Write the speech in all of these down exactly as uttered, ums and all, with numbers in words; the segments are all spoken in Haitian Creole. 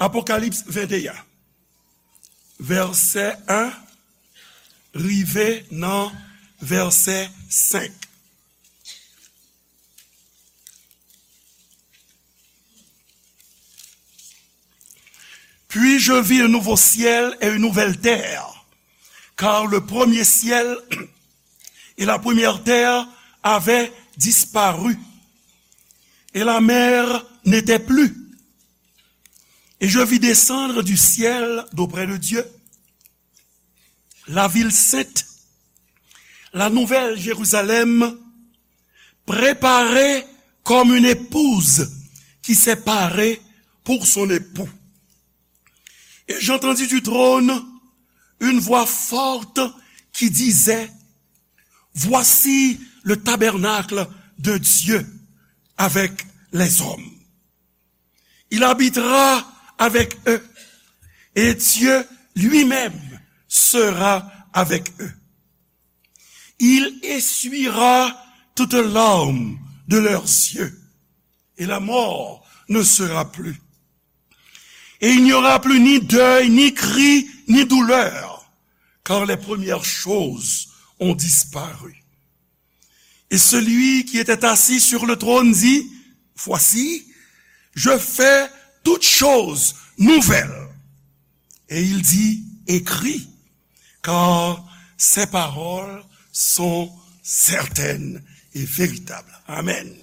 Apokalips venteyen, vèsè en rive nan vèsè senk. Puis je vis un nouveau ciel et une nouvelle terre, car le premier ciel et la première terre avaient disparu, et la mer n'était plus. Et je vis descendre du ciel d'auprès de Dieu la ville sainte, la nouvelle Jérusalem, préparée comme une épouse qui s'est parée pour son époux. Et j'entendis du trône une voix forte qui disait, voici le tabernacle de Dieu avec les hommes. Il habitera avec eux, et Dieu lui-même sera avec eux. Il essuiera toute larme de leurs yeux, et la mort ne sera plus. Et il n'y aura plus ni deuil, ni cri, ni douleur, car les premières choses ont disparu. Et celui qui était assis sur le trône dit, voici, je fais toutes choses nouvelles. Et il dit, écris, car ces paroles sont certaines et véritables. Amen.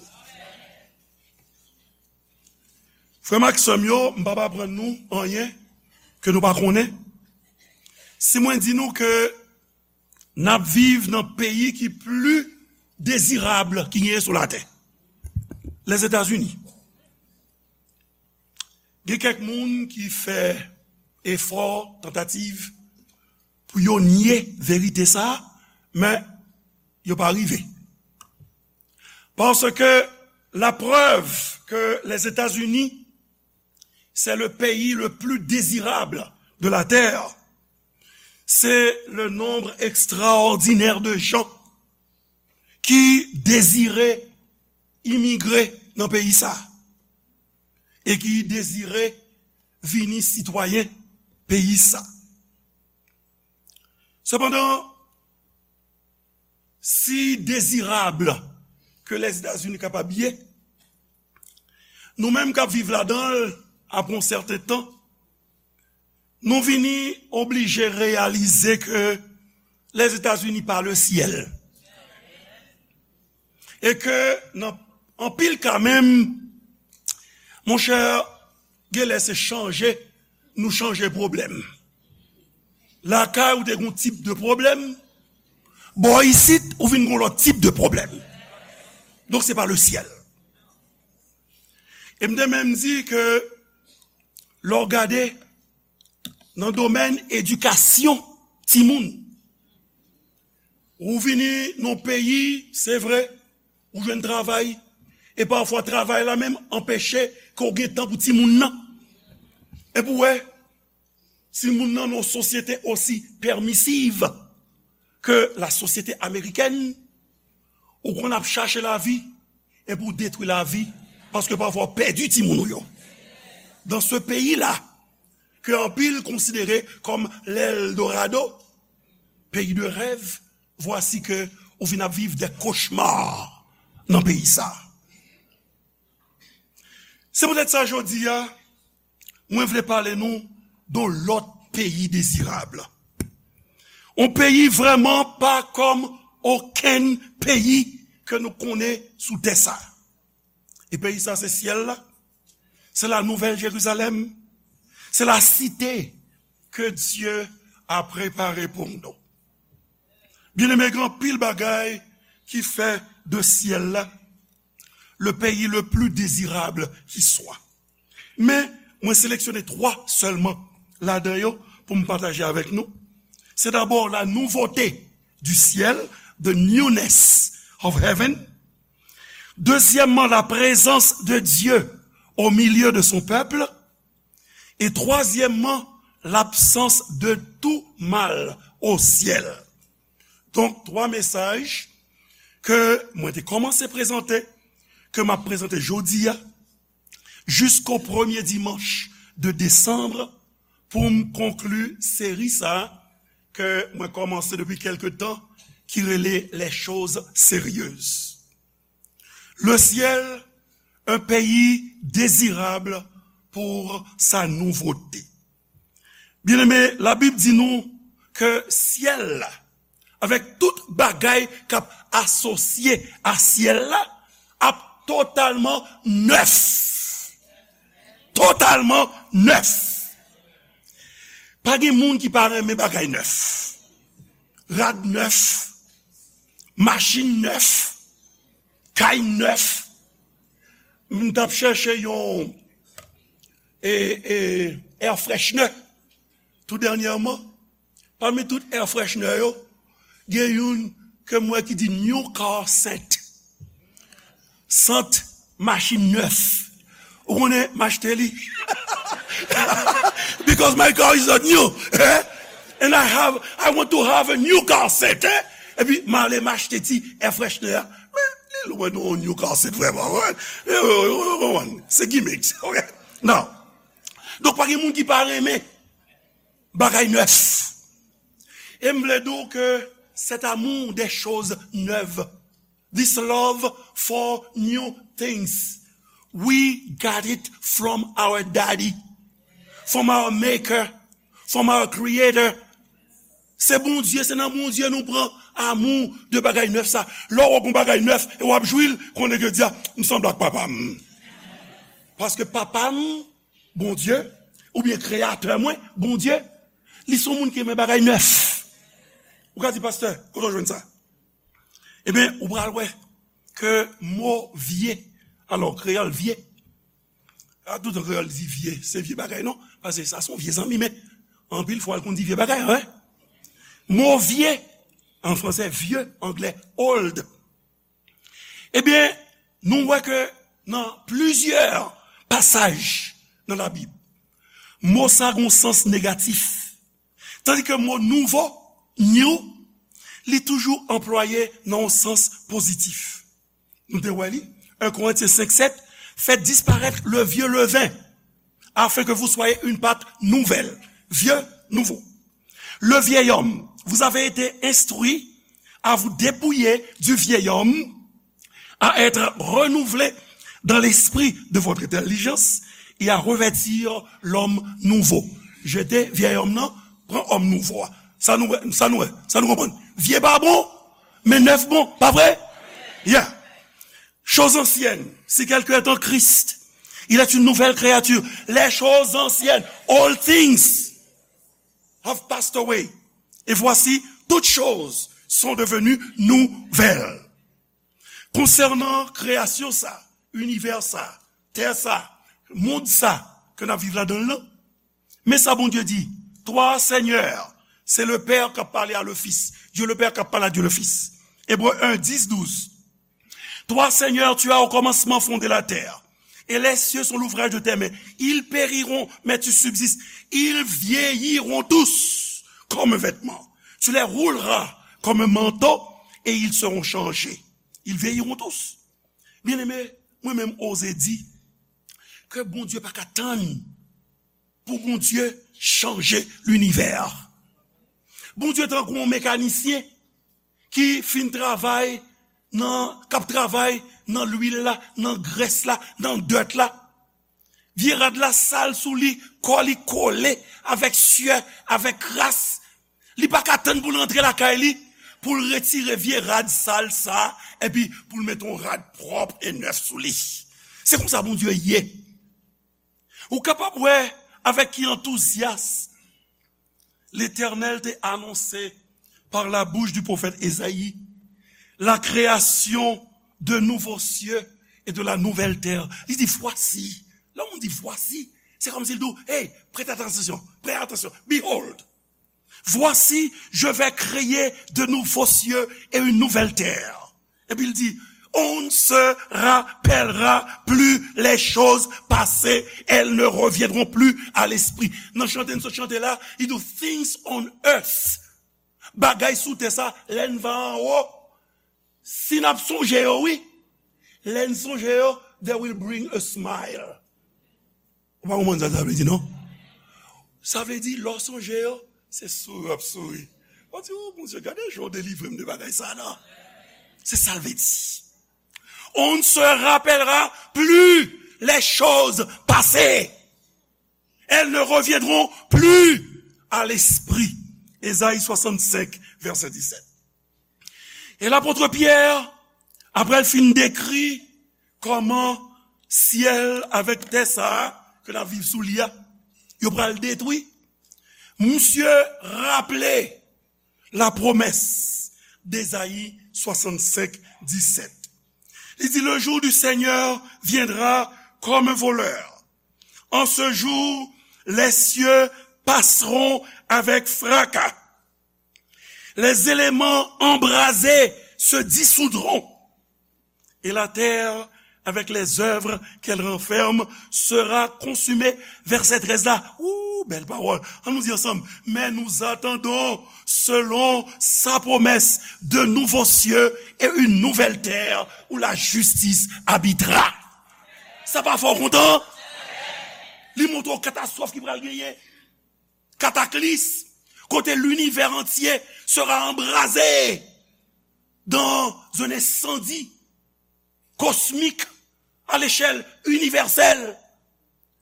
Frè m ak sè m yo, m p ap aprann nou anyen ke nou pa konnen. Si mwen di nou ke n ap viv nan peyi ki pli dezirab ki genyen sou latè, Lèzetazini. Gen kèk moun ki fè efò, tantativ pou yo nye verite sa a, men yo pa rive. Paske la preuve que les États-Unis, c'est le pays le plus désirable de la terre, c'est le nombre extraordinaire de gens ki dezire imigre nan peyi sa e ki dezire vini sitwayen peyi sa. Sepandan, si dezirab ke Lèzetazini kapab ye, nou menm k ap viv ladan l apre yon sèten tan, nou vini oblije reyalize ke Lèzetazini pa le syèl. E ke nan anpil ka menm, monchè, genlè se chanje nou chanje pwoblèm. Lakay ou te gen yon tip de pwoblèm, bò isit ou vin gen yon lòt tip de pwoblèm. Donk se pa le syèl. E m te menm di ke lè w gade nan domèn edikasyon timoun, ou vini nan peyi, se vre, ou jwenn travay, e pafwa travay la menm anpeche ke w gen tan pou timoun nan. Epi w wè, timoun nan nan yon sosyete osi pèmisiv ke la sosyete amerikèn, ou konn ap chache lavi, epi w detwi lavi, paske pafwa w pèdi timoun ou yo. Dans ce pays-là, ke anpil konsidere kòm l'Eldorado, peyi de rèv, vwasi ke ou vin ap viv des cauchemars nan peyi sa. Se poutèt sa jodi a, mwen vle pale nou de yon lòt peyi dezirab. Yon peyi vrèman pa kòm okenn peyi ke nou konnen sou tè sa. E peyi sa se syèl la. Se la nouvèl Jerizalèm. Se la site ke Dye a prepare pou nou. Byeneme, gen anpil bagay ki fè de syèl la le pays le plus désirable qui soit. Men, mwen seleksyone twa sèlman ladan yo pou m pataje avèk nou. Se dabò la nouveauté du ciel, the newness of heaven. Dezyèmman, la présence de Dieu au milieu de son peuple. Et troisièmement, l'absence de tout mal au ciel. Donk, twa mesaj ke mwen te kòmanse prezante, ke m ap prezante jodi a, jisko premye dimanch de desanm pou m konkli seri sa a ke mwen kòmanse depi kèlke tan, ki rele Les choses sérieuses. Le ciel, un pays désirable pour sa nouveauté. Byeneme, Labib di nou ke syèl la, avèk tout bagay k ap asosye a syèl la, ap totalman nèf. Totalman nèf. Pa gen moun ki pa renmen bagay nèf. Rad nèf, machin nèf, kay nèf. M t ap chèche yon, e, e, air freshener tou dènyèman. Pami tout air freshener yo, gen youn ke m wè ki di new car scent. Sant machin nèf. Ou konnen m achte li? Because my car is not new, eh? And I have, I want to have a new car set, eh? Epi m ale m achte ti air freshener a. Men li lwen nou new car set vrèman, wi. Se gimmicks, ok? Now, donk pa gen moun ki pa renmen bagay nèf. E m vle di w ke cet amour des choses neuves, this love for new things, we got it from our daddy, from our maker, from our creator. Se Bondye, se nan Bondye nou pran amou de bagay nèf sa. Lè w wè yon bagay nèf e w ap jwi l, konnen ke di a, m sanble ak papa m. Paske papa m, Bondye, oubyen kreyatè mwen, Bondye, li se yon moun ki renmen bagay nèf. Ou ka di, pastè, kote w jwenn sa? Ebyen, ou pral wè ke mo vye, alò, kreyòl vye, a, tout an kreyòl di vye, se vye bagay, non? Paske sa se yon vye zanmi, men anpil fwa, l konn di vye bagay, wi. Mo vye, an fransè, vieux, anglè, old. Ebyen, nou wè ke nan plizyè pasaj nan Labib, mo sa gen yon sans negatif. Tandis que mo nouvo, new, li toujou anplwaye nan yon sans pozitif. Nou te wè li, un Corinthiens cinq sept, faites disparaître le vieux levain, afin que vous soyez une pâte nouvelle. Vieux, nouveau. Le vieil homme, vous avez été instruit à vous dépouiller du vieil homme, à être renouvelé dans l'esprit de votre intelligence et à revêtir l'homme nouveau. Jete vyèy òm nan, pran òm nouvo a. Sa nou wè, sa nou wè, sa nou konprann? Vye pa bon, men nèf bon, pa vre? Yeah. Choses anciennes, si quelqu'un est en Christ, il est une nouvelle créature. Les choses anciennes, all things have passed away. Et voici, toutes choses sont devenues nouvelles. Konsènan kreyasyon sa, inivè sa, tè sa, mond sa ke n ap viv ladan l lan, men sa Bondye di, Toi, Seigneur, c'est le père qui a parlé à le fils. Dieu le Père qui a parlé à Dieu le Fils. Hébreux un, dix, douze. Toi, Seigneur, tu as au commencement fondé la terre, et les cieux sont l'ouvrage de tes mains. Ils périront, mais tu subsistes. Ils vieilliront tous comme un vêtement. Tu les rouleras comme un manteau, et ils seront changés. Ils vieilliront tous. Byeneme, mwen menm oze di ke Bondye pa ka tann pou Bondye chanje linivè. Bondye tankou yon mekanisyen ki fin travay nan, k ap travay nan lwil la, nan grès la, nan dèt la. Vye rad la sal sou li, kò li kole avèk syè, avèk kras. Li pa ka tann pou l rantre lakay li, pou l retire vye rad sal sa, epi pou l mete yon rad pwòp e nèf sou li. Se konsa Bondye ye. Ou kapab wè avèk ki antouzyas Letènèl te anonse par la bouche du prophète Ésaïe la création de nouveaux cieux et de la nouvelle terre. Li di, voici. Lè yon moun di, voici, se kòmsi l di w, hey, prête attention, prête attention, behold. Voici, je vais créer de nouveaux cieux et une nouvelle terre. Epi l di, on ne se rappellera plus les choses passées, elles ne reviendront plus à l'esprit. Nan chante n sot chante la, li di, things on earth. Bagay sou tè sa, lè n va anwo, si n ap sonje yo, wi. Lè n sonje yo, they will bring a smile. Ou pa konprann sa sa vle di, non? Sa vle di, lè w sonje yo, se souri w ap souri. W ap di, "O Bondye, gade jan w delivre m de bagay sa a, non?" Se sa l vle di. On ne se rappellera plus les choses passées. Elles ne reviendront plus à l'esprit. Ezayi swasannsenk, vèsè disèt. E lapot Pyè, apre l fin dekri kòman syèl avèk tè sa a ke n ap viv sou li a, yo pral detwi, misye raple la promesse d'Ésaïe soixante-cinq, dix-sept. Il dit, "Le jour du Seigneur viendra comme un voleur. En ce jour, les cieux passeront avec fracas. Les éléments embrasés se dissoudront. Et la terre, avec les œuvres qu'elle renferme, sera consumée." Vèsè trèz la, ou, bèl pawòl. Ann nou di ansanm, "Mais nous attendons, selon sa promesse, de nouveaux cieux et une nouvelle terre où la justice habitera." Sa pa fè w kontan? Li montre w katastwòf ki pral genyen. Kataklism, kote linivè antye sera embrasé dans un incendie cosmique à l'échelle universelle.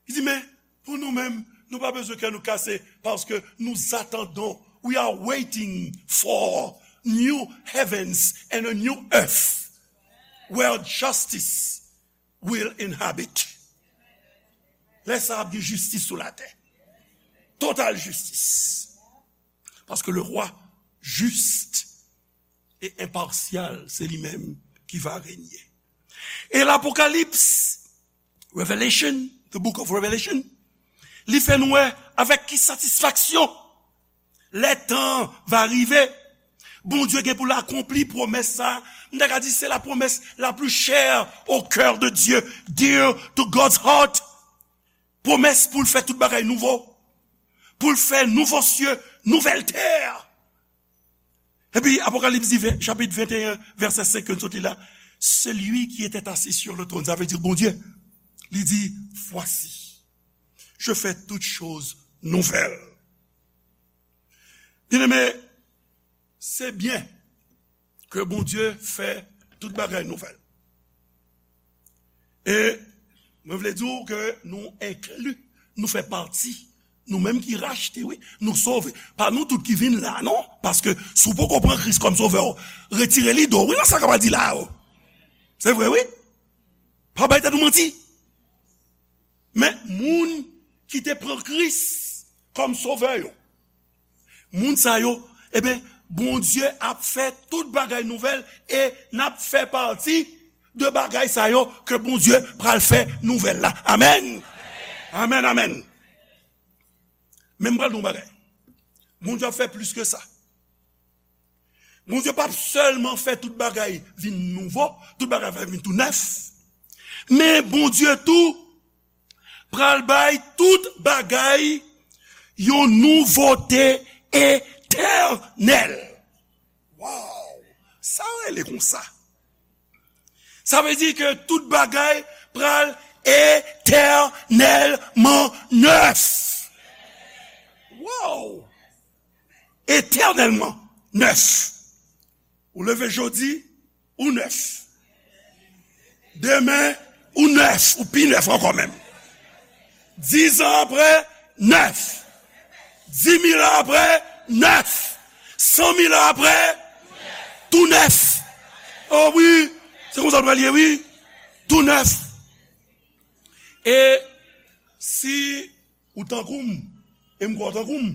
Li di, men, pou nou menm, nou pa bezwen kè nou kase, paske nous attendons, we are waiting for new heavens and a new earth, where justice will inhabit. Lè sa ap gen jistis sou latè. Total jistis. Paske le roi juste et impartial, se li menm ki va renye. E Lapokalips, Revelation, the book of Revelation, li fè nou wè avèk ki satisfaksyon lè tan va rive, Bondye gen pou l akonpli pwomès sa. M ta ka di se la promesse la plus chère au cœur de Dieu, dear to God's heart. Pwomès pou l fè tout bagay nouvo, pou l fè nouvo sye, nouvèl tè. Epi Apokalips di, ven- chapit venteyen, vèsè senk ke n sot li la, celui qui était assis sur le trône, sa vle di Bondye, li di, "Voici, je fais toutes choses nouvelles." Byeneme, se byen ke Bondye fè tout bagay nouvèl. E mwen vle di w ke nou enkli, nou fè pati, nou menm ki rachte, wi, nou sove. Pa nou tout ki vin la, non? Paske si w poko pran Kris kòm sovè w, retire lide w, wi, nan sa k ap di la yo. Se vre, wi. Pa bay tèt ou manti. Men moun ki te pran Kris kòm sovè yo, moun sa yo, eben, Bondye ap fè tout bagay nouvèl e n ap fè pati de bagay sa yo ke Bondye pral fè nouvèl la. Amèn. Amèn, amèn. Men m pral di w yon bagay. Bondye ap fè plis ke sa. Bondye p ap sèlman fè tout bagay vin nouvo, tout bagay va vin tou nèf. Men Bondye tou pral bay tout bagay yon nouvote etènèl. Waw! Sa rele konsa? Sa vle di ke tout bagay pral etènèlman nèf. Waw! Etènèlman nèf. Ou leve jodi, ou nèf. Demen, ou nèf, ou pi nèf ankò menm. Dizan apre, nèf. Dimil an apre, nèf. Sanmil an apre, tou nèf. O wi, se konsa l pral ye, wi. Tou nèf. E si ou tankou m, e m kwè w tankou m,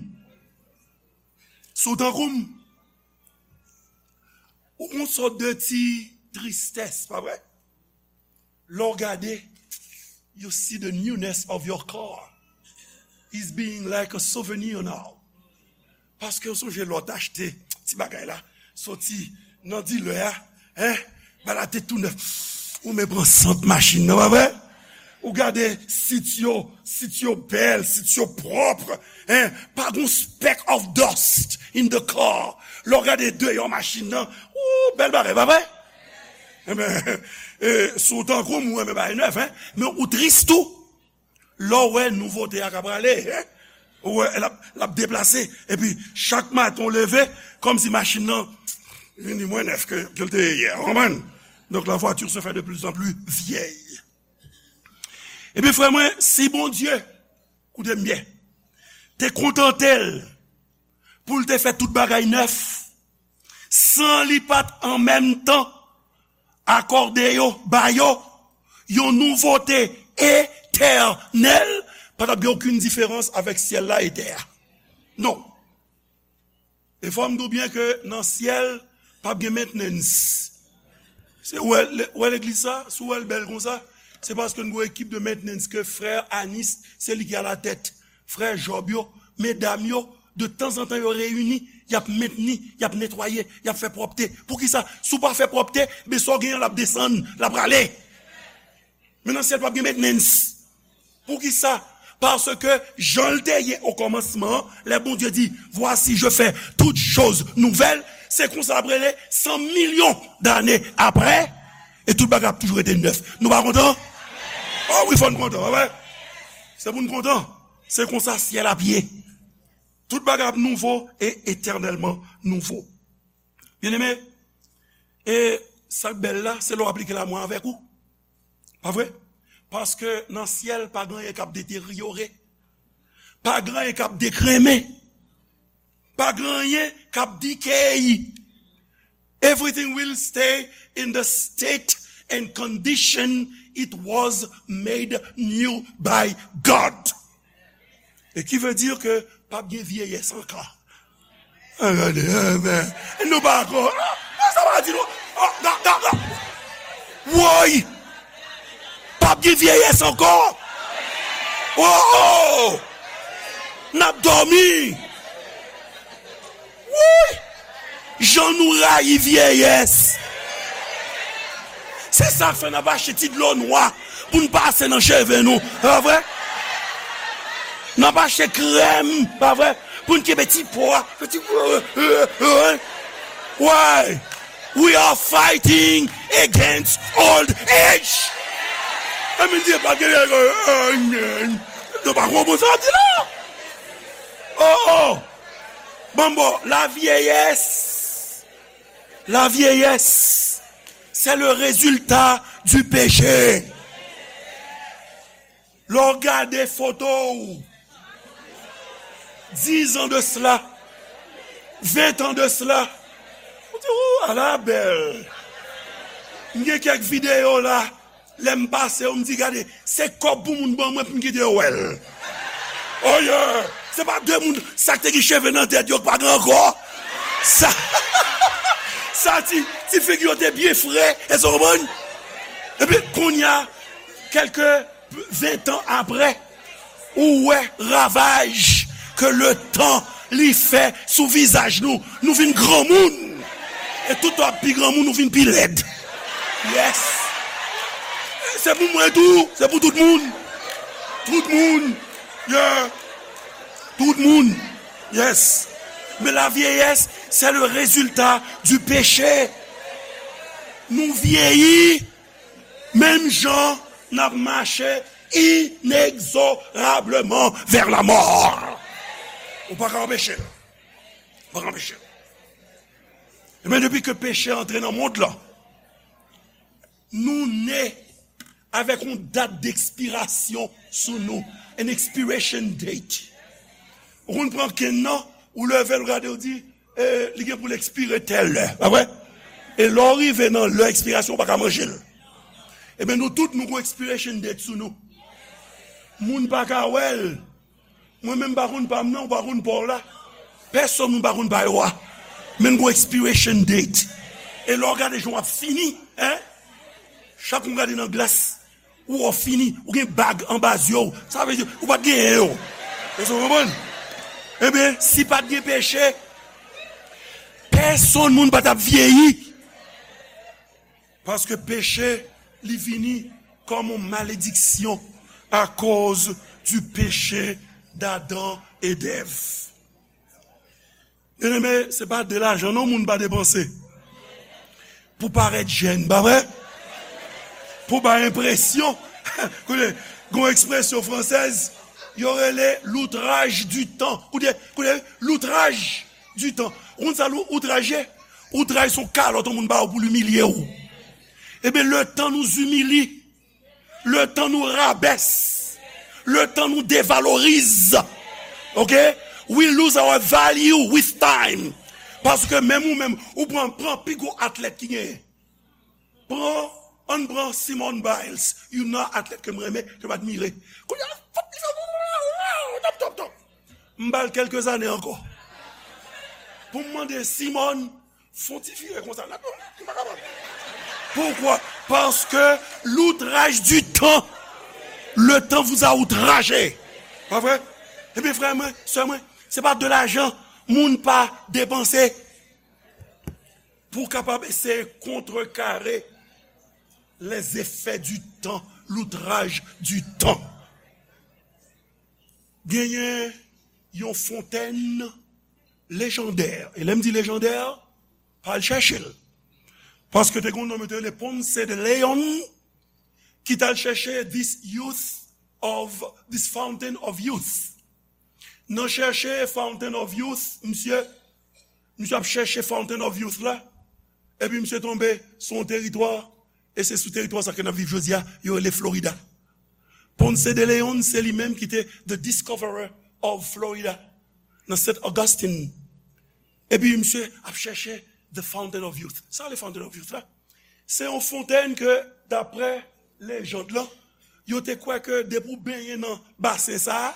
si w tankou m, ou gon sòt de ti tristès, pa vre? Lè w gade, you see the newness of your car is being like a souvenir now. Paske w sonje lè w t achte ti bagay la, soti nan dilè a, en, bagay la te tou nèf. Ou men pran sant machin nan, pa vre? Ou gade sit yo, sit yo bèl, sit yo pwòp, en, pa gon speck of dust in the car. Lè w gade deyò machin nan, ou, bèl bagay, pa vre? Enben, e, si w tankou m, ou renmen bagay nèf, en, men ou tris tou. Lè w wè nouvote a ka prale, hein? Ou wè, l ap, l ap deplase. Epi, chak maten w leve, kòmsi machin nan vin di mwens nèf ke, ke l te ye yè. Ou konprann? Donc, la voiture se fait de plus en plus vieille. Ebyen, frè mwen, si Bondye, koute m byen, te kontante l pou l te fè tout bagay nèf, san li pa t an menm tan akòde yo, ba yo, yon nouvote etènèl, pa t ap gen okenn diferans avèk syèl la e tè a. Non. E fò m di w byen ke nan syèl, p ap gen maintenance. Se, ou wè, le-, ou wè legliz sa, si w wè l bèl konsa, se paske n gen yon ekip de maintenance ke frè Anis, se li ki alatèt. Frè Job yo, medam yo, de tanzantan yo reyini, y ap mentni, y ap netwaye, y ap fè pwòpte. Poukisa? Si w pa fè pwòpte, men sa w genyen l ap desann, l ap rale. Men nan syèl p ap gen maintenance. Poukisa? Paske jan l te ye okòmansman an, lè Bondye di, voici, je fais toutes choses nouvelles, se konsa l ap rele san milyon dane aprè, e tout bagay ap toujou rete nèf. Nou pa kontan? O wi, fò n kontan, pa vre? Se pou n kontan. Se konsa syèl ap ye. Tout bagay ap nouvo e etènèlman nouvo. Byeneme, e sa k bèl la, se lè w aplike la mwen avèk ou. Pa vre? Paske nan syèl, pa gen anyen k ap deteryore. Pa gen anyen k ap dekrenmen. Pa gen anyen k ap decay. Everything will stay in the state and condition it was made new by God. E ki vle di ke p ap gen vyeyès ankò. A, gade, a, men, nou pa ankò. A, sa pa di nou. A, ga, ga, ga. Woy! P ap gen vyeyès ankò. O, o! N ap dòmi. Woy! Jan nou rayi vyeyès. Se sa k fè n ap achte ti dlo nwa pou n pase nan cheve nou. Pa vre? N ap achte krèm, pa vre? Pou n kenbe ti po a. Fè ti, why? We are fighting against old age. Sa vle di pa gen, nou pa konprann sa di la. Oh, oh. Bon, bon, la vieillesse. La vieillesse, c'est le résultat du péché. Lè w gade foto w, dizan de sila, ventan de sila, ou di, ou, ala bèl. M gen kèk videyo la, lè m pase yo, m di, gade, se kòb pou moun ban mwen pou m kite yo wè l. Oh yeah! Se pa de moun, sa k te gen cheve nan tèt yo k pa gen ankò. Sa, sa ti, ti figi yo te byen fre, èske w konprann? Epi, kounye a, kèlke ventan apre, ou wè ravaj ke letan li fè sou vizaj nou. Nou vin granmoun. E tout tan w ap pi granmoun, ou vin pi lèd. Yes. Se pou mwen tou, se pou tout moun. Tout moun. Yeah. Tout moun. Yes. Men la vyeyès, se le rezilta di peche. Nou vyeyi, menm jan n ap mache inexorablement vers la mort. Ou pa ka anpeche l. Ou pa ka anpeche l. Ebyen, depi ke peche antre nan mond lan, nou ne avèk yon dat dekspirasyon sou nou, an expiration date. Ou konn pran kenn nan, ou leve l, ou gade, ou di, e, li gen pou l ekspire tèl lè, pa vre? E lè w rive nan lè ekspirasyon, ou pa ka manje l. Ebyen, nou tout, nou gon expiration date sou nou. Moun pa ka wè l. Mwen menm, m pa konn pa m nan, ou pa konn pa w la. Pèsonn moun pa konn pa yo a. Men n gon expiration date. E lè w gade jan w ap fini, en? Chak moun gade nan glas, ou wè w fini, ou gen bag anba zye w. Sa vle di, ou pa t genyen yo. Èske w konprann? Ebyen, si pa t gen peche, pèsonn moun pa t ap vyeyi. Paske peche, li vini kòm yon malediksyon akoz di peche d'Adan e d'Èv. Byeneme, se pa de lajan non moun pa depanse. Pou parèt jèn, pa vre? Pou bay enpresyon. Koute, Gon ekspresyon fransèz, yo rele l'outrage du temps. Koute, koute, l'outrage du temps. Ou konn sa lou-, outraj ye? Outraj se yon kalòt yon moun ba ou pou l imilye w. Ebyen, le temps nous humilie. Le temps nous rabaisse. Le temps nous dévalorise. Ok? We lose our value with time. Paske menm ou menm, ou pran, pran pi gwo atlèt ki genyen. Pran, ann pran Simone Biles, youn nan atlèt ke m renmen, ke m admire. Kounye a, top, top, top. M ba l kèlke zane ankò. Pou m mande Simone, fè yon ti vire konsa, la, m pa kapab. Pourquoi? Parce que l'outrage du temps, le temps vous a outragé. Pa vre? Ebyen, frè mwen, sè mwen, se pa de lajan moun pa depanse pou kapab eseye kontrekare les effets du temps, l'outrage du temps. Genyen yon fontèn lejandè. E lè m di lejandè, pa al chèche l. Paske te gen yon nonm yo te rele Ponce de Leon, ki t al chèche this youth of, this fountain of youth. Nan chèche Fountain of Youth, misye, misye ap chèche Fountain of Youth la, epi misye tonbe sou yon teritwa, e se sou teritwa sa ke n ap viv jodi a, yo rele Florida. Ponce de Leon, se li menm ki te the discoverer of Florida, nan Saint Augustine. Epi misye ap chèche the Fountain of Youth. Sa le Fountain of Youth la? Se yon fontèn ke, daprè lejand lan, yo te kwè ke depi w benyen nan basen sa a,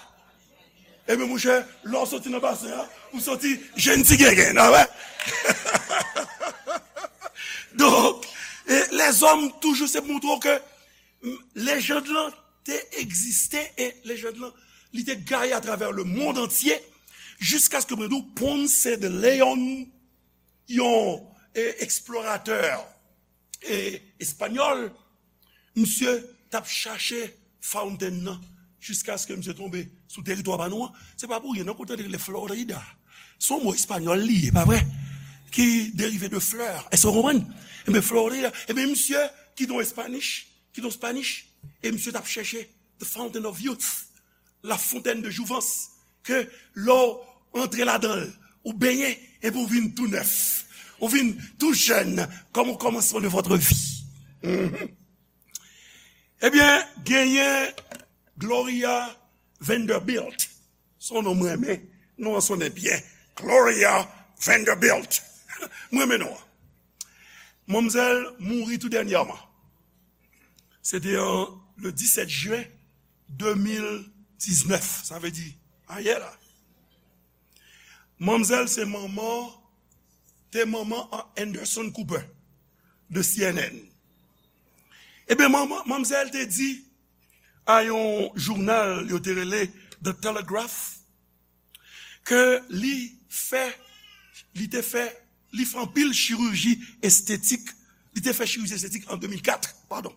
ebyen, monchè, lè w soti nan basen an, ou soti jenn ti gengen, a wè? Donk, e, lèzòm toujou se montre w ke, m, lejand lan te egziste e lejand lan, li te gaye atravè le monde entier, jiskaske mwen di w Ponce de Leon, yon, e, eksploratè, e, espanyòl, misye t ap chache fountain nan jiskaske misye tonbe sou teritwa pa nou an. Se pa pou ryen, non, kote li rele Florida. Se yon mo espanyòl li ye, pa vre? Ki derive de fleur. Èske w konprann? Ebyen, Florida. Ebyen, misye ki t yon Espanish, ki t yon Spanish, e misye t ap chèche the Fountain of Youth, la fontaine de jouvence, ke lè w antre ladan l, ou benyen, epi ou vin tou nèf, ou vin tou jèn, comme au commencement de votre vie. Mhm. Ebyen, genyen Gloria Vanderbilt. Se yon non m renmen, non an sonnen byen. Gloria Vanderbilt. M renmen non an. Manmzèl mouri tou dènyèman. Se te an le disèt jen de mil diznèf, sa vle di ayè la. Manmzèl se manman, te manman an Anderson Cooper de C N N. Ebyen, manman, manmzèl te di a yon jounal yo te rele The Telegraph ke li fè, li te fè, li fè anpil chiriji estetik, li te fè chiriji estetik an de mil kat, padon,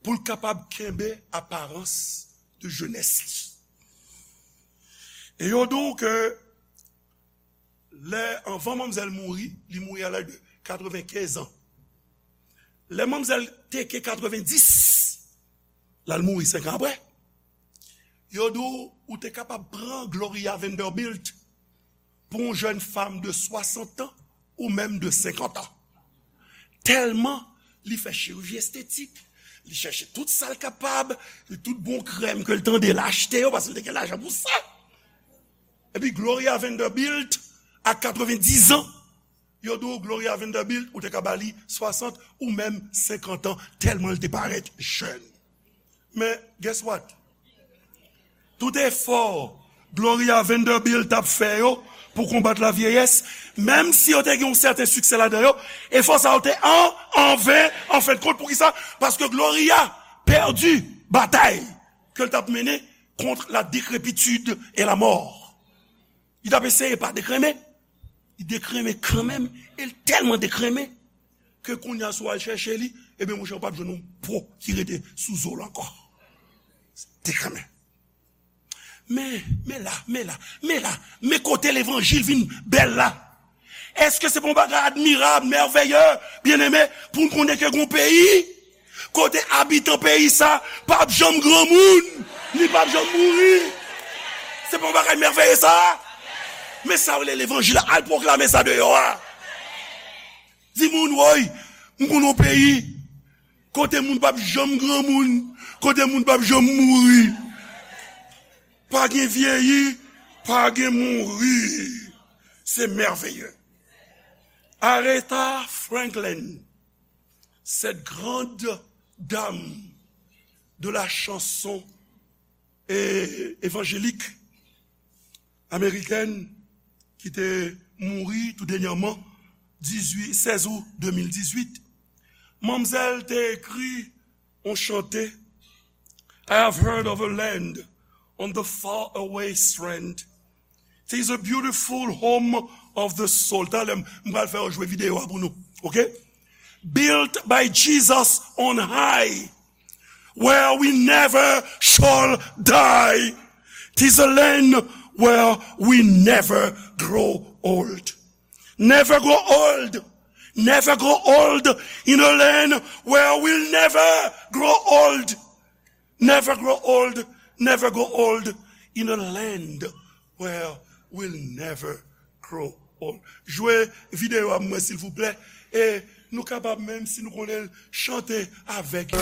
pou l kapab kenbe aparans de jenès li. E yo di w ke lè, anvan manmzèl mouri, li mouri a laj de katrevenkenz an. Lè manmzèl te ke katrevendis, l al mouri senk an apre, yo di w, ou te kapab pran Gloria Vanderbilt pou yon jèn fanm de swasant an ou menm de senkant an. Tèlman li fè chiriji estetik, li chèche tout sa l kapab, li tout bon krèm ke l tande, l achte yo, paske l te gen lajan pou sa. Epi Gloria Vanderbilt, a katrevendis an, yo di w Gloria Vanderbilt, ou te ka ba li swasant ou menm senkant an, tèlman l te parèt jèn. Men, guess what? Tout efò Gloria Vanderbilt t ap fè yo pou konbat lavyeyès, menm si yo te gen yon sèten siksè ladan yo, efò sa yo te an, an ven, an fen de kont. Poukisa? Paske Gloria pèdi batay ke l t ap mennen contre la décrépitude et la mort. Li t ap eseye pa dekrenmen. Li dekrenmen kanmenm, e l tèlman dekrenmen ke kounye a, si w al chèche li, ebyen, monchè, ou p ap jwenn yon po ki rete sou zo l ankò. Dekrenmen. Men, men la, men la, men la, men kote levanjil vin bèl la. Èske se pa yon bagay admirab, mèvèye, byeneme, pou n konnen ke gon peyi, Kote abitan peyi sa p ap janm granmoun, ni p ap janm mouri. Se pa yon bagay mèveye sa? Men sa yo rele levanjil, al pwoklame sa deyò a. Di moun, woy, m konn yon peyi kote moun p ap janm granmoun, kote moun p ap janm mouri. Pa gen vyeyi, pa gen mouri. Se mèveye. Aretha Franklin, cette grande dame de la chanson é- évangélique américaine ki te mouri tou dènyèman, dizuit, sèz out de mil dizuit, manmzèl te ekri yon chante, I have heard of a land on the far away strand. It is a beautiful home of the soul. Talè m pral fè yo jwe videyo a pou nou. Ok? Built by Jesus on high, where we never shall die. It is a land where we never grow old. Never grow old. Never grow old in a land where we'll never grow old. Never grow old, never grow old in a land where we'll never grow old. Jwe videyo a mwen, silvouplè. E nou kapab menm, si nou konnen l, chante avèk yo.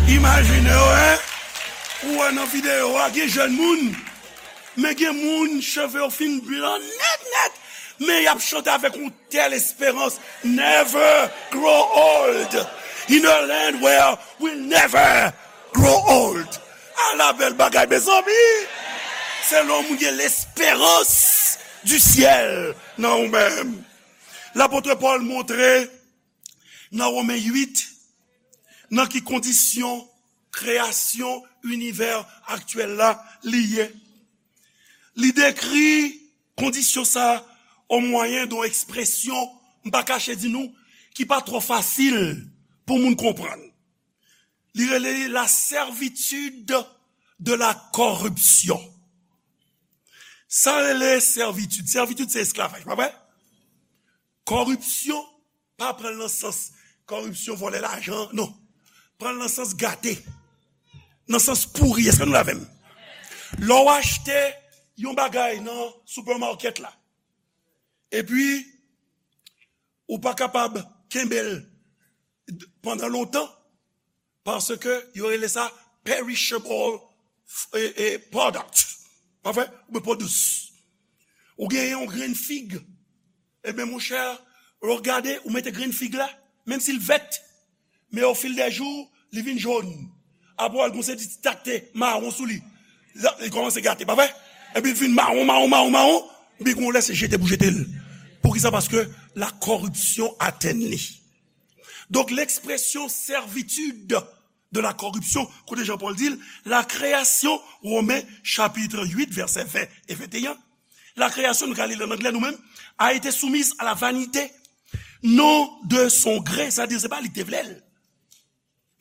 Imajine w, en, ou wè nan videyo a, gen jèn moun, men gen moun, cheve yo fin blan nèt, nèt, men y ap chante avèk yon tèl esperans. Never grow old in a land where we'll never grow old. Ala bèl bagay, mezanmi! Se lè yon moun gen lesperans di syèl nan ou menm. Lapot Pòl montre nan Women uit, nan ki kondisyon kreyasyon inivè aktyèl la li ye. Li dekri kondisyon sa a o mwayen de yon ekspresyon, m pa kache di nou, ki pa twò fasil pou moun konprann. Li rele li la servitude de la corruption. Sa rele sèvitid. Sèvitid se esklavaj, pa vre? Kòripsyon, pa pran l nan sans kòripsyon, vòlè lajan, non. Pran l nan sans gate, nan sans pouri. Èske nou la avè m? Lè w achte yon bagay nan supermarket la, epi ou pa kapab kenbe l pandan lontan, paske yo rele sa perishable, e, e, product. Pa vre? Oubyen produce. Ou genyen yon grenn fig. Ebyen, monchè, lè w gade, ou mete grenn fig la, menm si l vèt, men au fil des jours, li vin jòn. Apre, w al gon seri ti ti takte mawon sou li. Li kòmanse gate, pa vre? Epi l vin mawon, mawon, mawon, mawon. Epi gon lè se jete pou jete l. Poukisa? Paske la corruption atteint li. Donk, l'expression servitude de la corruption, kote Jean Paul di l, la création, Romains chapitre huit, versets vingt et vingt et un, la création, nou ka li l an anglè nou menm, a été soumise à la vanité, non de son gré, sa di se pa li ki te vle l,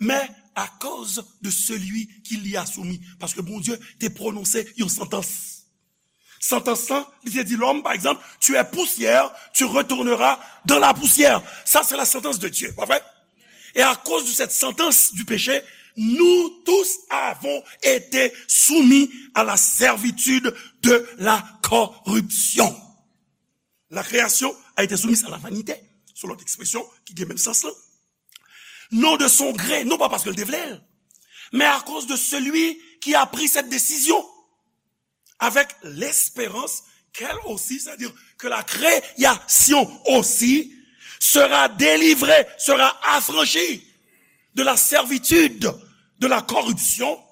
mais à cause de celui qui l'y a soumis. Paske Bondye te pwononse yon santans. Santans lan, li te di lòm, pa egzanp, tu es poussière, tu retourneras dans la poussière. Ça, c'est la sentence de Dieu, pa vre? Et à cause de cette sentence du péché, nous tous avons été soumis à la servitude de la corruption. La création a été soumise à la vanité, se lòt ekspresyon ki gen menm sans lan. Non de son gré, non pa paske l te vle l, mais à cause de celui qui a pris cette décision, avec l'espérance qu'elle aussi, c'est-à-dire que la création aussi sera délivrée, sera affranchie de la servitude, de la corruption,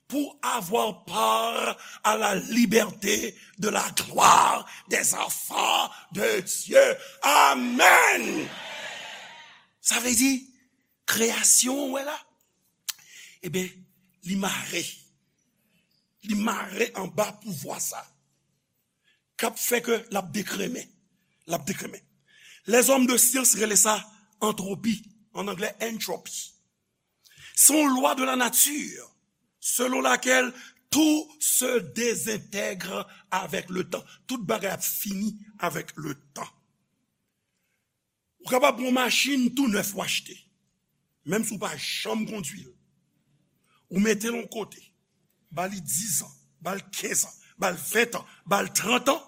pour avoir part à la liberté de la gloire des enfants de Dieu. Amen. Sa vle di, kreyasyon, w wè la, ebyen, li mare. Li mare anba pouvwa sa k ap fè ke l ap dekremen. L ap dekremen. Lèzòm de syans rele sa antropi, an anglè entropy. Se yon lwa de la nature selon laquelle tout se désintègre avec le temps. Tout bagay ap fini avèk le tan. Ou kapab pran yon machin tou nèf ou achte, menm si w pa janm kondwi l. Ou mete l yon kote, ba li diz an, ba l kenz an, ba l ven an, ba l trant an,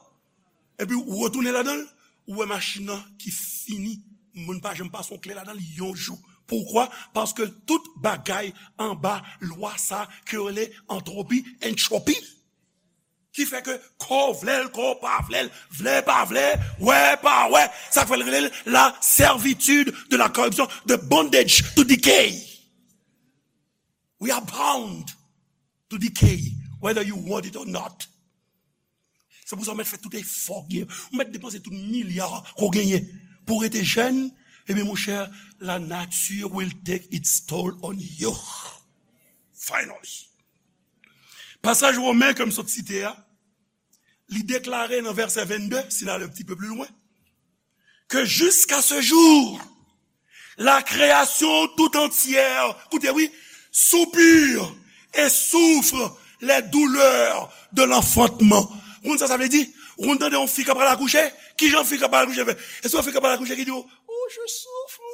epi ou retounen ladan l, ou wè machin nan ki fini, moun pa janm pase yon kle ladan l yon jou. Poukwa? Paske tout bagay anba lwa sa ke yo rele antropi, entropy. Ki fè ke kò w vle l, kò w pa vle l, vle pa vle, wè pa wè, sa k fè l rele l la servitude de la corruption, the bondage to decay. We are bound to decay, whether you want it or not. Se pou sa w mèt fè tout efò w genyen, w mèt depanse tout milya ke w genyen pou w rete jèn, ebyen, monchè, la nature will take its toll on you. Finally. Pasaj Women ke m sot site a, li deklare nan vèsè vennde, si n ale yon ti pe pli lwen, que jusqu'à ce jour, la création tout entière, koute wi, soupire et souffre les douleurs de l'enfantement. Ou konn sa sa vle di? Ou konn tande yon fi k ap pral akouche? Kijan fi k ap pral akouche fè? Èske yon fi k ap pral akouche ki di w, "Oh, je souffre"?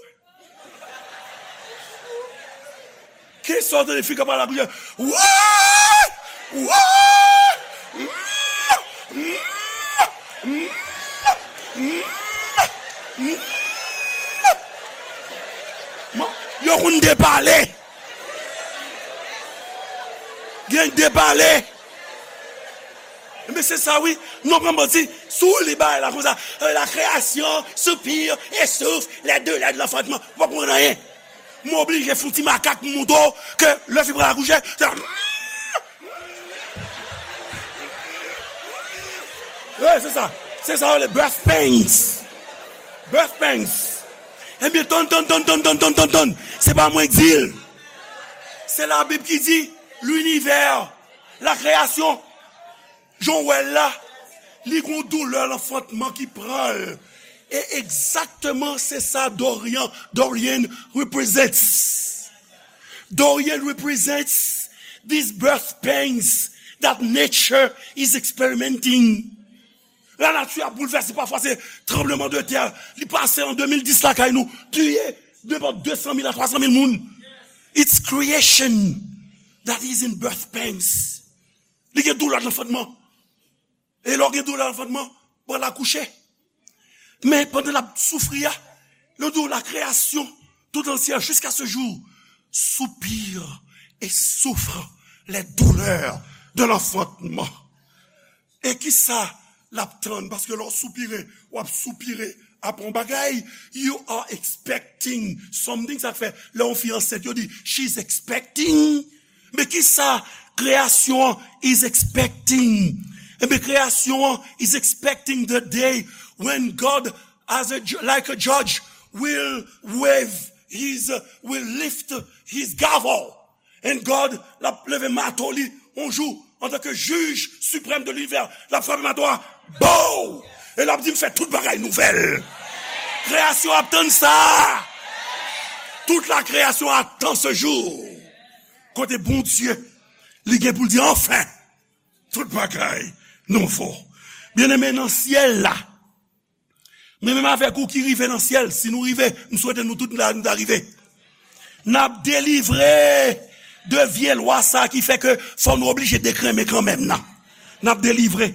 Kisa w tande fi k ap pale ak li? Wouy! Wouy! Yo konn depale. Gen depale. Men se sa wi, nou pran manti, si w li bagay la konsa, euh, la création soupire et souffre les douleurs de l'enfantement. Ou pa konprann anyen. M oblije fè yon ti makak pou montre w ke lè fi pral akouche, se wi, se sa. Se sa yo rele birth pains. Birth pains. Ebyen, tann, tann, tann. Se pa mwen k di l. Se Labib ki di, linivè, la création, jan w wè l la, li gon doulè lanfantman ki pran l. E egzakteman se sa Dorian, Dorian represents. Dorian represents these birth pains that nature is experimenting. Lanati ap boulvèse, pafwa se tranbleman de tè. Li pase an de mil dis lakay nou, tiye de bò de san mil a twa san mil moun. It's creation that is in birth pains. Li gen doulè lanfantman. E lè w gen doulè lanfantman, pral akouche. Men pandan l ap soufri a, li di w la création tout entière jusqu'à ce jour soupire et souffre les douleurs de l'enfantement. E kisa l ap tann, paske lè w soupire, w ap soupire apre yon bagay. You are expecting something. Sa k fè, lè yon fi ansent, yo di, "She's expecting." Men kisa kreyasyon an is expecting? Enben, kreyasyon an is expecting the day when God, as a ju-, like a judge, will wave his, uh, will lift his gavel. And God, l ap leve mato li yon jou, antanke jij siprèm de linivè, l ap frape mato a, bow! E l ap di, "M fè tout bagay nouvèl." Kreyasyon ap tann sa. Tout la création attend ce jour. Kote Bondye, li gen pou l di, "Anfen, tout bagay nouvo." Byeneme, nan syèl la, men menm avèk ou ki rive nan syèl, si nou rive, m swete nou tout la, nou ta rive. N ap delivre de vye lwa sa ki fè ke fò nou oblije dekrenmen kanmenm nan. N ap delivre.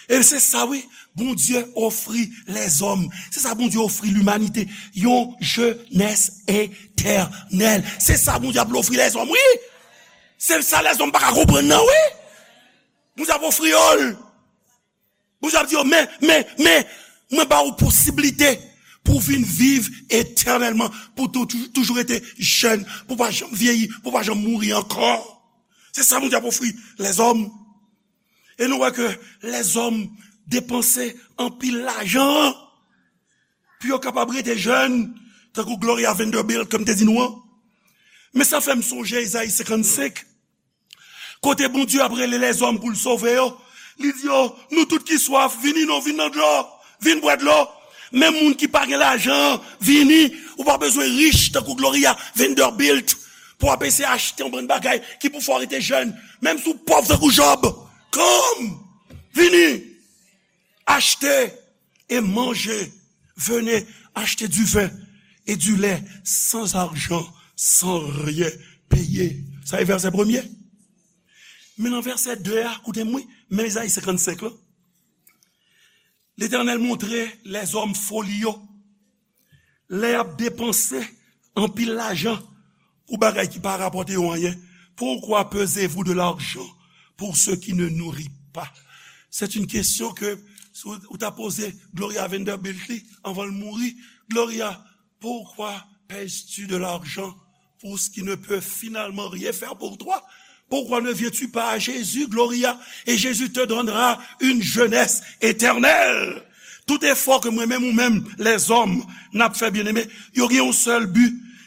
E se sa, wi, Bondye ofri lèzòm. Se sa Bondye ofri limanite. Yon jenès etènèl. Se sa Bondye ap ofri lèzòm, wi. Se sa lèzòm pa ka konprann nan, wi. Bondye ap ofri yo l. Bondye ap di yo, "Men, men, men, mwen ba ou posiblite pou w vin viv etènèlman, pou tou-, tou-, toujou rete jèn, pou w pa janm vyeyi, pou w pa janm mouri ankò." Se sa Bondye ap ofri lèzòm. E nou wè ke lèzòm depanse anpil lajan pou yo kapab rete jèn, tankou Gloria Vanderbilt, kòm te di nou an. Men sa fè m sonje Ezayi senkannsenk, kote Bondye ap rele lèzòm pou l sove yo. Li di yo, "Nou tout ki swaf, vini non, vin nan dlo, vin bwè dlo." Menm moun ki pa gen lajan, vini. Ou pa bezwen rich tankou Gloria Vanderbilt pou w ap eseye achte yon bann bagay ki pou fè w rete jèn. Menm si w pòv tankou Jòb, come, vini, achte et mangez, venez acheter du vin et du lait sans argent, sans rien payer. Sa e vèsè premye. Men nan vèsè de a, koute m wi, men Ezayi senkannsenk la. Letènèl montre lèzòm foli yo. Lè y ap depanse anpil lajan pou bagay ki pa rapòte yo anyen. Pourquoi pesez-vous de l'argent pour ce qui ne nourrit pas? C'est une question que si w, ou ta poze Gloria Vanderbilt li anvan l mouri. Gloria, pourquoi pèses-tu de l'argent pour ce qui ne peut finalement rien faire pour toi? Pourquoi ne viens-tu pas à Jésus, Gloria, et Jésus te donnera une jeunesse éternelle? Tout efò ke mwen menm ou menm, lèzòm, n ap fè, byeneme, yo gen yon sèl bi,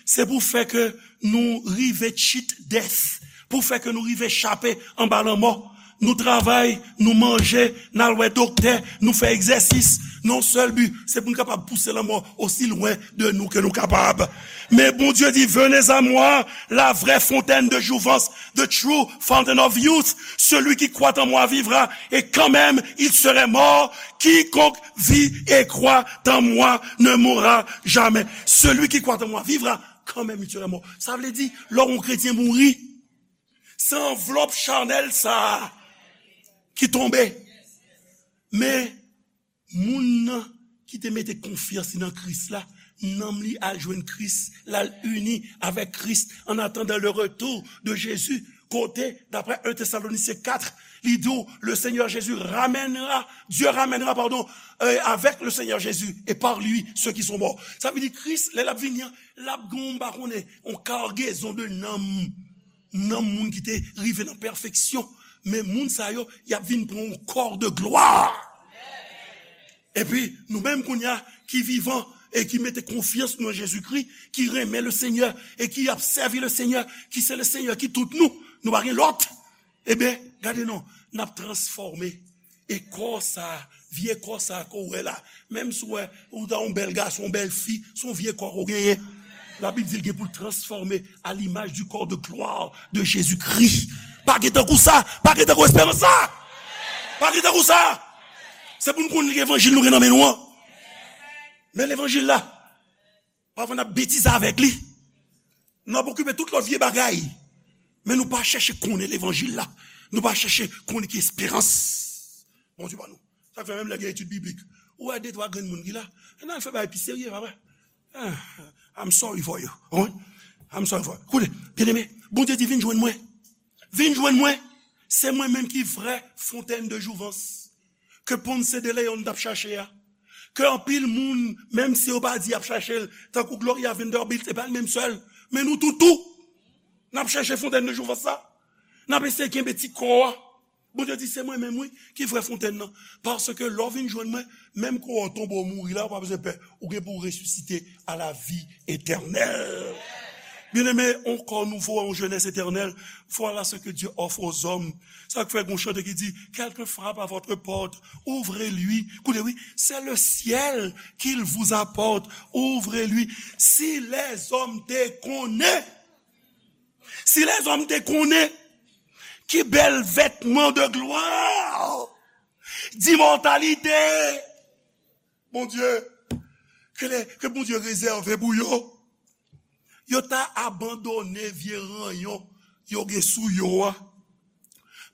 se pou fè ke nou rive cheat death, pou fè ke nou rive chape anba lanmò. Nou travay, nou manje, n al wè doktè, nou fè egzèsis. Nan yon sèl bi, se pou n kapab pouse lanmò osi lwen de nou ke nou kapab. Men Bondye di, venez à moi, la vraie fontaine de jouvence, the true fountain of youth. Celui qui croit en moi vivra, et quand même il serait mort. Quiconque vit et croit en moi ne mourra jamais. Celui qui croit en moi vivra, quand même il serait mort. Sa vle di, lè yon kretyen mouri, se anvlòp chanèl sa a ki tonbe. Men moun nan ki te mete konfyans li nan Kris la, nanm li al jwenn Kris, l al ini avèk Kris en attendant le retour de Jésus. Kote, d'après un Thessaloniciens quatre, li di w, le Seigneur Jésus ramènera, Dieu ramènera, pardon, euh, avec le Seigneur Jésus et par lui ceux qui sont morts. Sa vle di Kris, lè l ap vini an, l ap gen, m pa konnen, yon kargezon de nanm, nanm moun ki te rive nan pèfeksyon. Men moun sa yo, y ap vin pran yon kò de glwa. Epi, nou menm kounye a, ki vivan e ki mete konfyans nou nan Jezikri, ki renmen le Senyè e ki ap sèvi le Senyè, ki se le Senyè ki tout nou, nou pa gen lòt. Ebyen, gade non, n ap transfòme. E kò sa, vye kò sa ke w wè la, menm si w wè ou ta yon bèl gason, yon bèl fi, se yon vye kò ke w genyen. Labib di l gen pou l transfòme à l'image du corps de gloire de Jésus-Christ. Pa gen tankou sa, pa gen tankou esperans sa. Pa gen tankou sa. Se pou n konn levanjil nou gen nan men nou an. Men levanjil la, pafwa n ap betize avèk li. Nou ap okipe tout lòt vye bagay. Men nou pa chèche konnen levanjil la. Nou pa chèche konnen ki esperans Bondye ba nou. Sa k fè menm lè gen etid biblik, ou wè de twa grenn moun ki la, n al fè bagay pi serye, papa. Ah, I'm sorry for you. Wi. I'm sorry for you. Koute, byeneme, Bondye di, vin jwenn mwen. Vin jwenn mwen. Se mwen menm ki vrè fontèn de jouvans. ke Ponce de León t ap chache a. Ke anpil moun, menm si yo pa di y ap chache l, tankou Gloria Vanderbilt, se pa l menm sèl. Men nou tout tou, n ap chache fontèn de jouvans la. N ap eseye kenbe ti kò a. Bondye di, se mwen menm, wi, ki vrè fontèn nan. Paske lè w vin jwenn mwen, menm kò w tonbe w mouri la, ou pa bezwen pè. Ou gen pou w resisite à la vie éternelle. Bien-aimé, un corps nouveau, une jeunesse éternelle, voilà ce que Dieu offre aux hommes. Sa k fè gon chante ki di, quelqu'un frappe à votre porte, ouvrez-lui. Koute, wi, c'est le ciel qu'il vous apporte, ouvrez-lui. Si lèzòm te konnen, si lèzòm te konnen, ki bèl vètman de glwa, d'imòtalite, Bondye, ke, lè, ke Bondye rezève pou yo. Yo ta abandone vye ranyon yo gen sou yo a,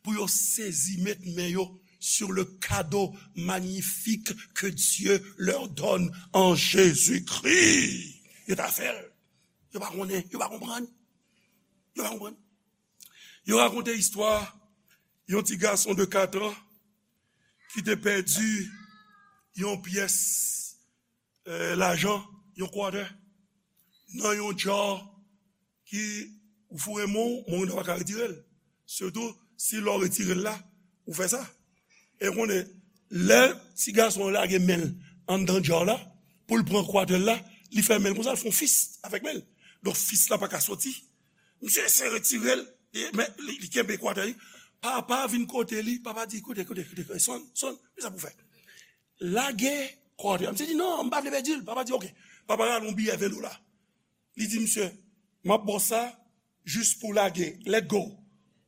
pou yo sezi met men yo sur le cadeau magnifique que Dieu leur donne en Jésus-Christ. Yo ta fè l. Yo pa konnen, yo pa konprann. Yo pa konprann. Yo rakonte istwa yon ti gason de kat an ki te pèdi yon pyès, eh, lajan, yon quarter, nan yon jar ki ou foure men w, men w pa ka retire l. Sitou si lè w retire l la, ou fè sa. E w konnen, lè ti gason an lage men l anndan jar la, pou l pran quarter la, li fè men l konsa, l fè yon fist avèk men l. Donk, fist la pa ka soti. Misye eseye retire l, e, men li, li kenbe quarter li. Papa vin kote li, papa di, koute, koute, koute, koute, Son, Son, men sa pou fè. Lage quarter. Misye di, non, m pa vle pèdi l. Papa di, oke. Papa rale yon biyè ven dola. Li di, misye, m ap ba w sa, jis pou lage, let go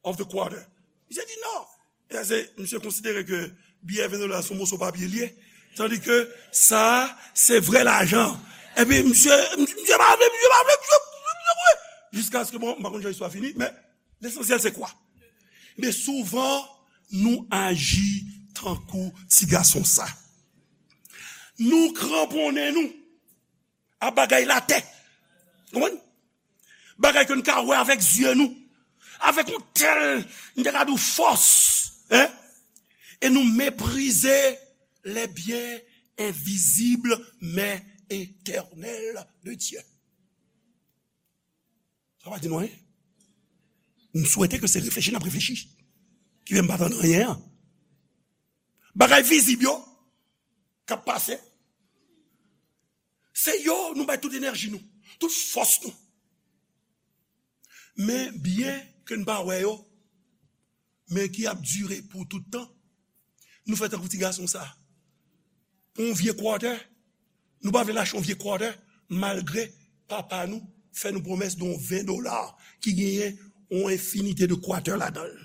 of the quarter. Misye di, non. E se, misye konsidere ke biyè ven dola se yon moso papye li ye. Tandi ke sa, se vrè lajan. Epi misye, misye pa vle, misye pa vle, misye, misye, misye, misye. Jiskaske, bon, m pa konn jan istwa fini, men lesansyèl se kwa? Men souvan, nou aji tankou ti gason sa. Nou kranponnen nou a bagay latè. Konprann? Bagay ke n ka wè avèk zye nou. Avèk yon tèl, n te ka di w fòs. Hein? E nou meprize les biens invisibles mais éternels de Dieu. Sa pa di nou anyen? M swete ke se reflechi n ap reflechi ki fè m pa tann anyen an. Bagay vizib yo k ap pase, se yo nou bay tout enèji nou, tout fòs nou. Men byen ke n pa wè yo, men ki ap dire pou tout tan, nou fè tankou ti gason sa. Pou yon vye quarter, nou pa vle lache yon vye quarter, malgre papa nou fè nou pwomès de yon ven dola ki genyen yon enfinite de quarter ladan l.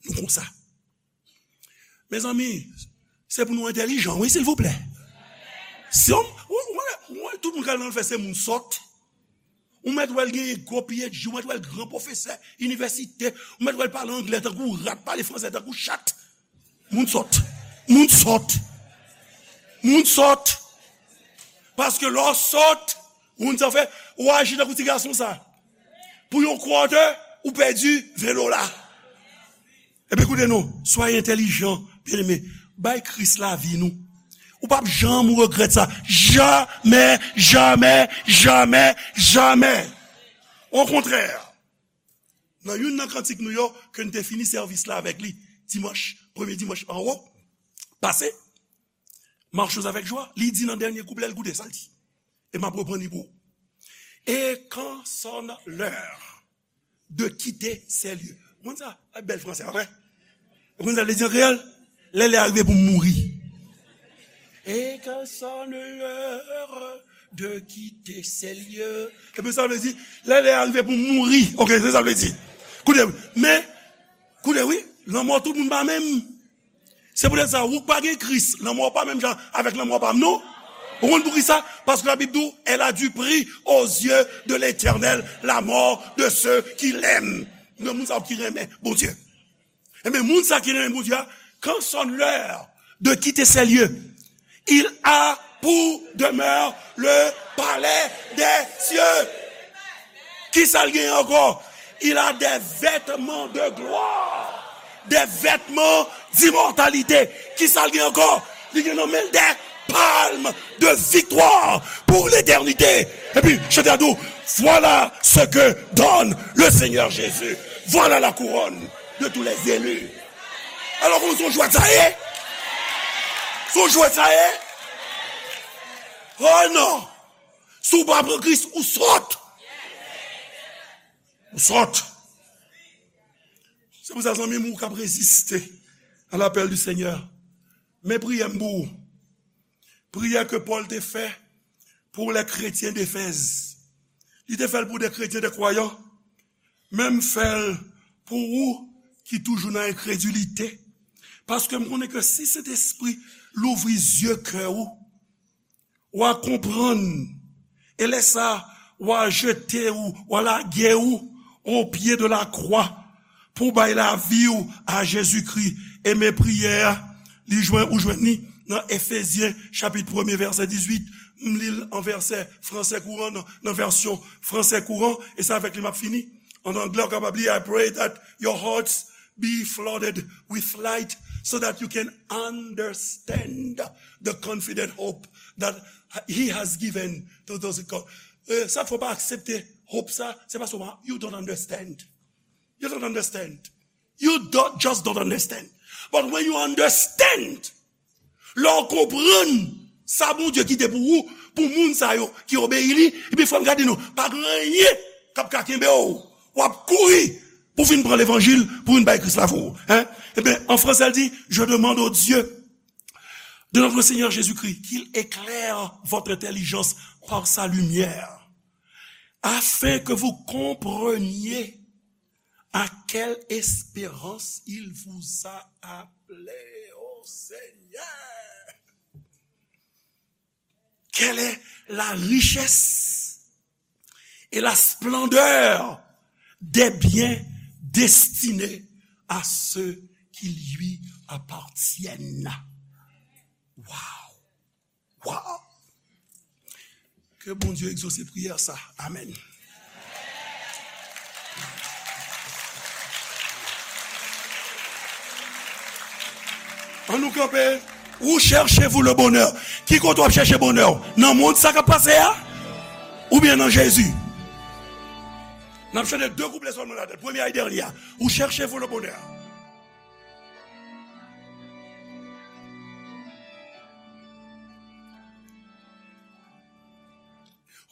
Nou konsa. Mezanmi, se pou nou entèlijan, wi, silvouplè. Si yon, ou, ou, ou, tout moun k al nan lanfè se moun sòt. Ou mèt wè l genyen gwo P H D, ou mèt wè l gran pwofesè inivèsite, ou mèt wè l pale anglè tankou rat, pale fransè tankou chat. Moun sòt. Moun sòt. Moun sòt. Paske lè w sòt, ou konn sa w fè, ou aji tankou ti gason sa. Pou yon quarter, ou pèdi ven dola. Ebyen, koute non, soyez intelligents, bien-aimés. Bay Kris lavi nou. Ou p ap janm regrèt sa. Jamè, jamè, jamè, jamè. Okontrè, nan youn nan kantik nou yo, ke n te fini sèvis la avèk li, dimanch, premye dimanch an wo, pase, Marchons avec joie, li di nan dènye kouplè l, koute sa l di. E m ap reprann li pou ou. Et quand sonne l'heure de quitter ces lieux. Ou konn sa? Ay, bèl fransè, pa vre? Ou konn sa l vle di an kreyòl? Lè lè a rive pou m mouri. Et quand sonne l'heure de quitter ces lieux. Epi sa vle di, lè lè a rive pou m mouri. Oke, se sa vle di. Koute, men, koute, wi, lanmò tout moun pa menm. Se poutèt sa, ou k pa gen Kris, lanmò w pa menm jan avèk lanmò pa m, non. Ou konn poukisa? Paske Labib di w, elle a du prix aux yeux de l'Éternel, la mort de ceux qui l'aiment. Nan moun sa yo ki renmen Bondye. Ebyen, moun sa ki renmen Bondye a, quand sonne l'heure de quitter ces lieux, il a pour demeure le palais des cieux. Kisa l genyen ankò? Il a des vêtements de gloire. Des vêtements d'immortalité. Kisa l gen ankò? Li gen nan men l des palmes de victoire pour l'éternité. Epi, chante a di w, voilà ce que donne le Seigneur Jésus. Voilà la couronne de tous les élus. Alò, kòman se yon jwèt sa ye? Se yon jwèt sa ye? Oh non! Si w pa pran Kris, ou sòt. Ou sòt. Se pou sa, zanmi m, ou k ap reziste à l'appel du Seigneur. Men priyè m pou ou. Priyè ke Pòl te fè pour les chrétiens d'Éphèse. Li te fè l pou de kretyen, de kwayan. Men m fè l pou ou ki toujou nan enkredilite. Paske m konnen ke si Sentespri louvri zye kè ou, w a konprann. E lè sa, w a jete ou, w a lage ou o pye de la kwa pou w bay lavi w a Jezikri. E men priyè a, li jwenn, ou jwenn li nan Efezyen chapit premye vèsè dizuit. M li l an vèsè fransè kouran, nan, nan vèsyon fransè kouran, e se avèk li m ap fini. An anglè, w kapab li, I pray that your hearts be flooded with light so that you can understand the confident hope that he has given to those who call. Eh, sa fò pa aksepte hope sa, se paske w pa, you don't understand. You don't understand. You don't, just don't understand. But when you understand, lè w konprann sa Bondye kite pou ou, pou moun sa yo ki obeyi li, epi frè m, gade non, pa gen anyen k ap ka kenbe w. W ap kouri pou vin pran levanjil, pou vin bay Kris lavi w. Hein? Ebyen, an fransè, l di, je demande au Dieu de notre Seigneur Jésus-Christ qu'il éclaire votre intelligence par sa lumière, afin que vous compreniez à quelle espérance il vous a appelés, ô Seigneur. Quelle est la richesse et la splendeur des biens destinés à ceux qui lui appartiennent. Wow! Wow! Ke Bondye egzose priyè sa. Amèn. Ann nou kanpe. Où cherchez-vous le bonheur? Ki kote w ap chèche bonè w? Nan mond sa k ap pase a? Oubyen nan Jezi? N ap chante de kouplè sèlman ladan l. Premye a e dènye a. Où cherchez-vous le bonheur?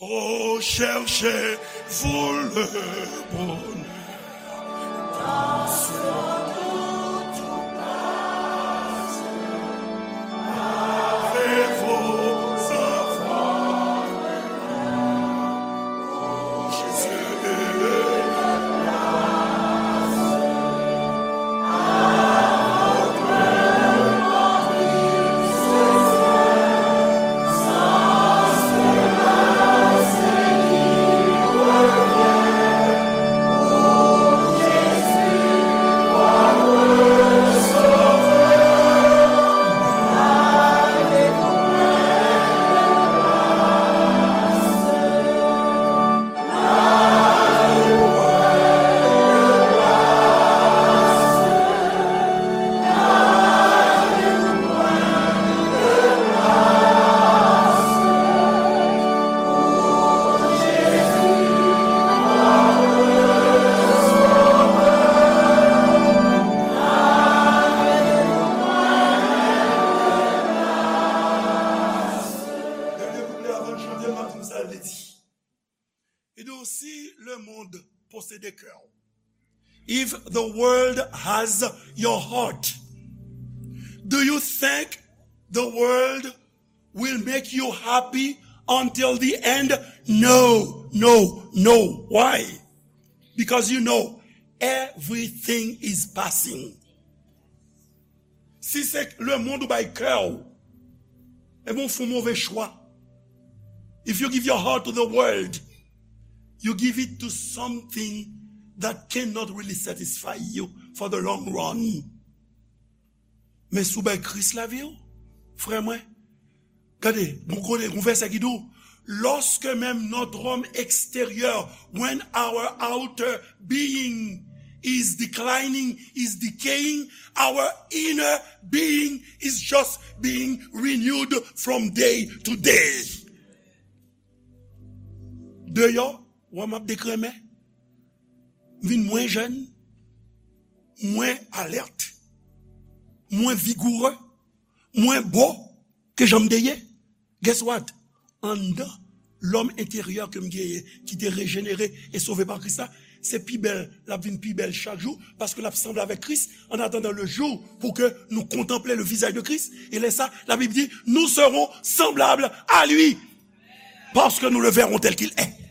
Oh, cherchez-vous le bonheur. Dènye kouplè avan n chante, m ap di n sa l vle di. Li di, si lemonn posede kè w, if the world has your heart, do you think the world will make you happy until the end? No, no, no. Why? Because you know everything is passing. Si se lemonn ou bay kè w, ebyen, w fè yon move chwa. If you give your heart to the world, you give it to something that cannot really satisfy you for the long run. Men si w bay Kris lavi w, frè mwen, gade, gon kote, gon vèsè ki di w, lorsque même notre homme extérieur, when our outer being is declining, is decaying. Our inner being is just being renewed from day to day. Deyò, wè m ap dekrenmen. M vin mwen jèn, mwen alèt, mwen vigourè, mwen bo ke jan m te ye. Guess what? Anndan, lòm enteryè ke m genyen, ki te rejenere e sove pa Kris la, se pi bèl, l ap vin pi bèl chak jou, paske l ap sanble avèk Kris, en attendant le jour pour que nous contemplions le visage de Christ. E lè sa, la Bib di, nous serons semblables à lui, parce que nous le verrons tel qu'il est.